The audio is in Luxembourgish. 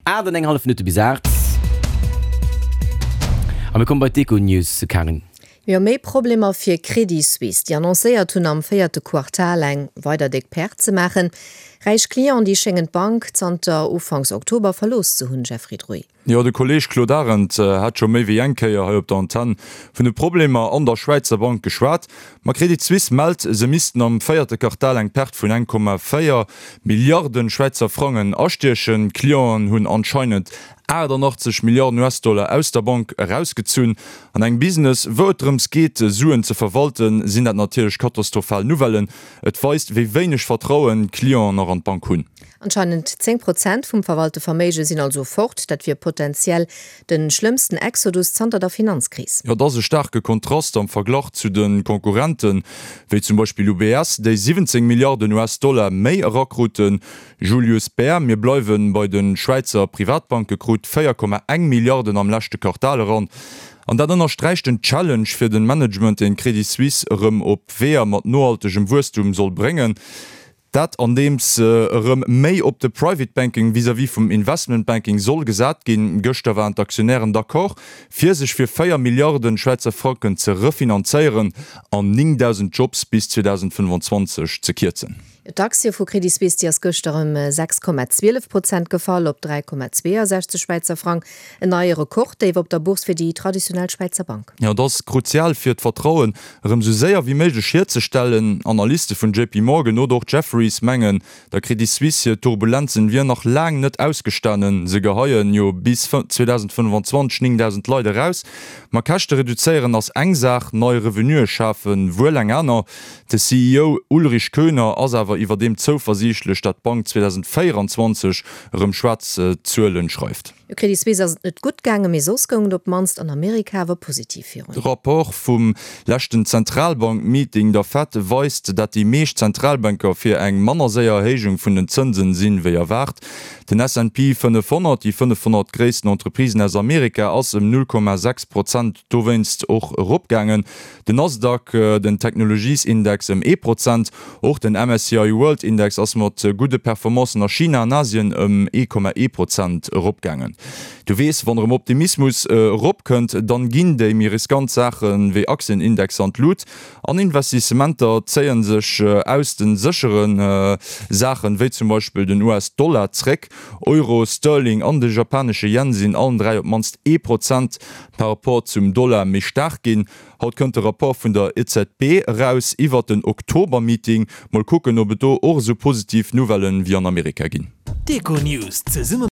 8 an eng hallef Minutte bis 8. A mir komme bei d'Econews, Karin. Jo, méi Problemer fir Credit Suisse, déi annoncéiert hunn, am véierte Quartal eng weider déck Perte ze maachen. Räich Clienten, déi schéngen d'Bank zanter Ufanks Oktober verlooss ze hunn, Jeffrey Druy. Jo, de Kolleeg Claude Arend hat scho méi wéi eng Kéier hei op der Antenn vun de Problemer an der Schwäizer Bank geschwat. Ma Credit Suisse mellt, se missten am véierte Quartal eng Perte vun 1,4 Milliarden Schwäizer Frangen astiechen. D'Clienten hunn anscheinend 88 Milliarden US-Dollar aus der Bank erausgezunn. An engem Business, wou et drëms geet, Suen ze verwalten, sinn dat natierlech katastrophal Nouvellen. Et weist, wéi wéineg Vertrauen d'Clienten nach an d'Bank hunn. Anscheinend 10 Prozent vum verwalte Verméige sinn also fort. Dat wier potenziell de schlëmmsten Exodus zanter der Finanzkris. Jo, et ass e staarke Kontrast am Verglach zu de Konkurrenten, wéi zum Beispill UBS, déi 17 Milliarden US-Dollar méi erakruten. Julius Bär, mir bleiwe bei de Schwäizer Privatbanke, krut 4,1 Milliarden am leschte Quartal eran. An dat ënnersträicht den Challenge fir de Management, deen d'Credit Suisse erëm op Weeër mat nohaltegem Wuesstum soll bréngen. Dat andeems erëm méi op de Private Banking vis-à-vis vum Investment Banking soll gesat ginn. Gëschter waren d'Aktionären d'accord, fir sech fir 4 Milliarden Schwäizer Franken ze refinanzéieren an 9.000 Jobs bis 2025 ze kierzen. D'Aktie vu Credit Suisse, déi ass gëschter ëm 6,12 Prozent gefall op 3,62 Schwäizer Frang. En neie Rekorddéif op der Bourse fir déi traditionell Schwäizer Bank. Jo, et ass kruzial fir d'Vertrauen erëm sou séier wéi méiglech hierzestellen. Analyste vun JP Morgan oder och Jefferies mengen, der Credit Suisse hir Turbulenzen wier nach laang net ausgestanen. Se geheien jo bis 2025 9.000 Leit eraus. Ma Käschte reduzéieren ass eng Saach, nei Revenuë schafe wuel eng aner. De CEO Ulrich Köhner ass awer iwwerdeem zouversiichtlech, dat d'Bank 2024 erëm schwaarz Zuelen schreift. Jo, Credit Suisse ass et net gutt gaangen, mee soss goung et op d'mannst an Amerika awer positiv virun. De Rapport vum leschten Zentralbank-Meeting, der Fed, weist, dat déi meescht Zentralbanker fir eng manner séier Erhéijung vun den Zënsen sinn, wéi erwaart. Den S&P 500, déi 500 gréissten Entreprisen aus Amerika, ass ëm 0,6 Prozent dowéinst och eropgaangen. Den Nasdaq, den Technologiesindex, ëm ee Prozent. Och den MSCI World Index ass mat gudde Performancen a China an Asien ëm 1,1 Prozent eropgaangen. Du weess, wann erëm Optimismus eropkënnt, dann ginn déi méi riskant Saache wéi Aktienindexer an d'Lut an Investissementer zéie sech aus de séchere Saachen, wéi zum Beispill den US-Dollar, zréck. Euro, Sterling an de japanesche Yen sinn allen 3 op d'mannst ee Prozent par Rapport zum Dollar méi staark ginn. Haut kënnt de Rapport vun der EZB eraus iwwert den Oktober-Meeting. Mol kucken, ob et do och esou positiv Nouvellen wéi an Amerika ginn. D'Econews zesumme.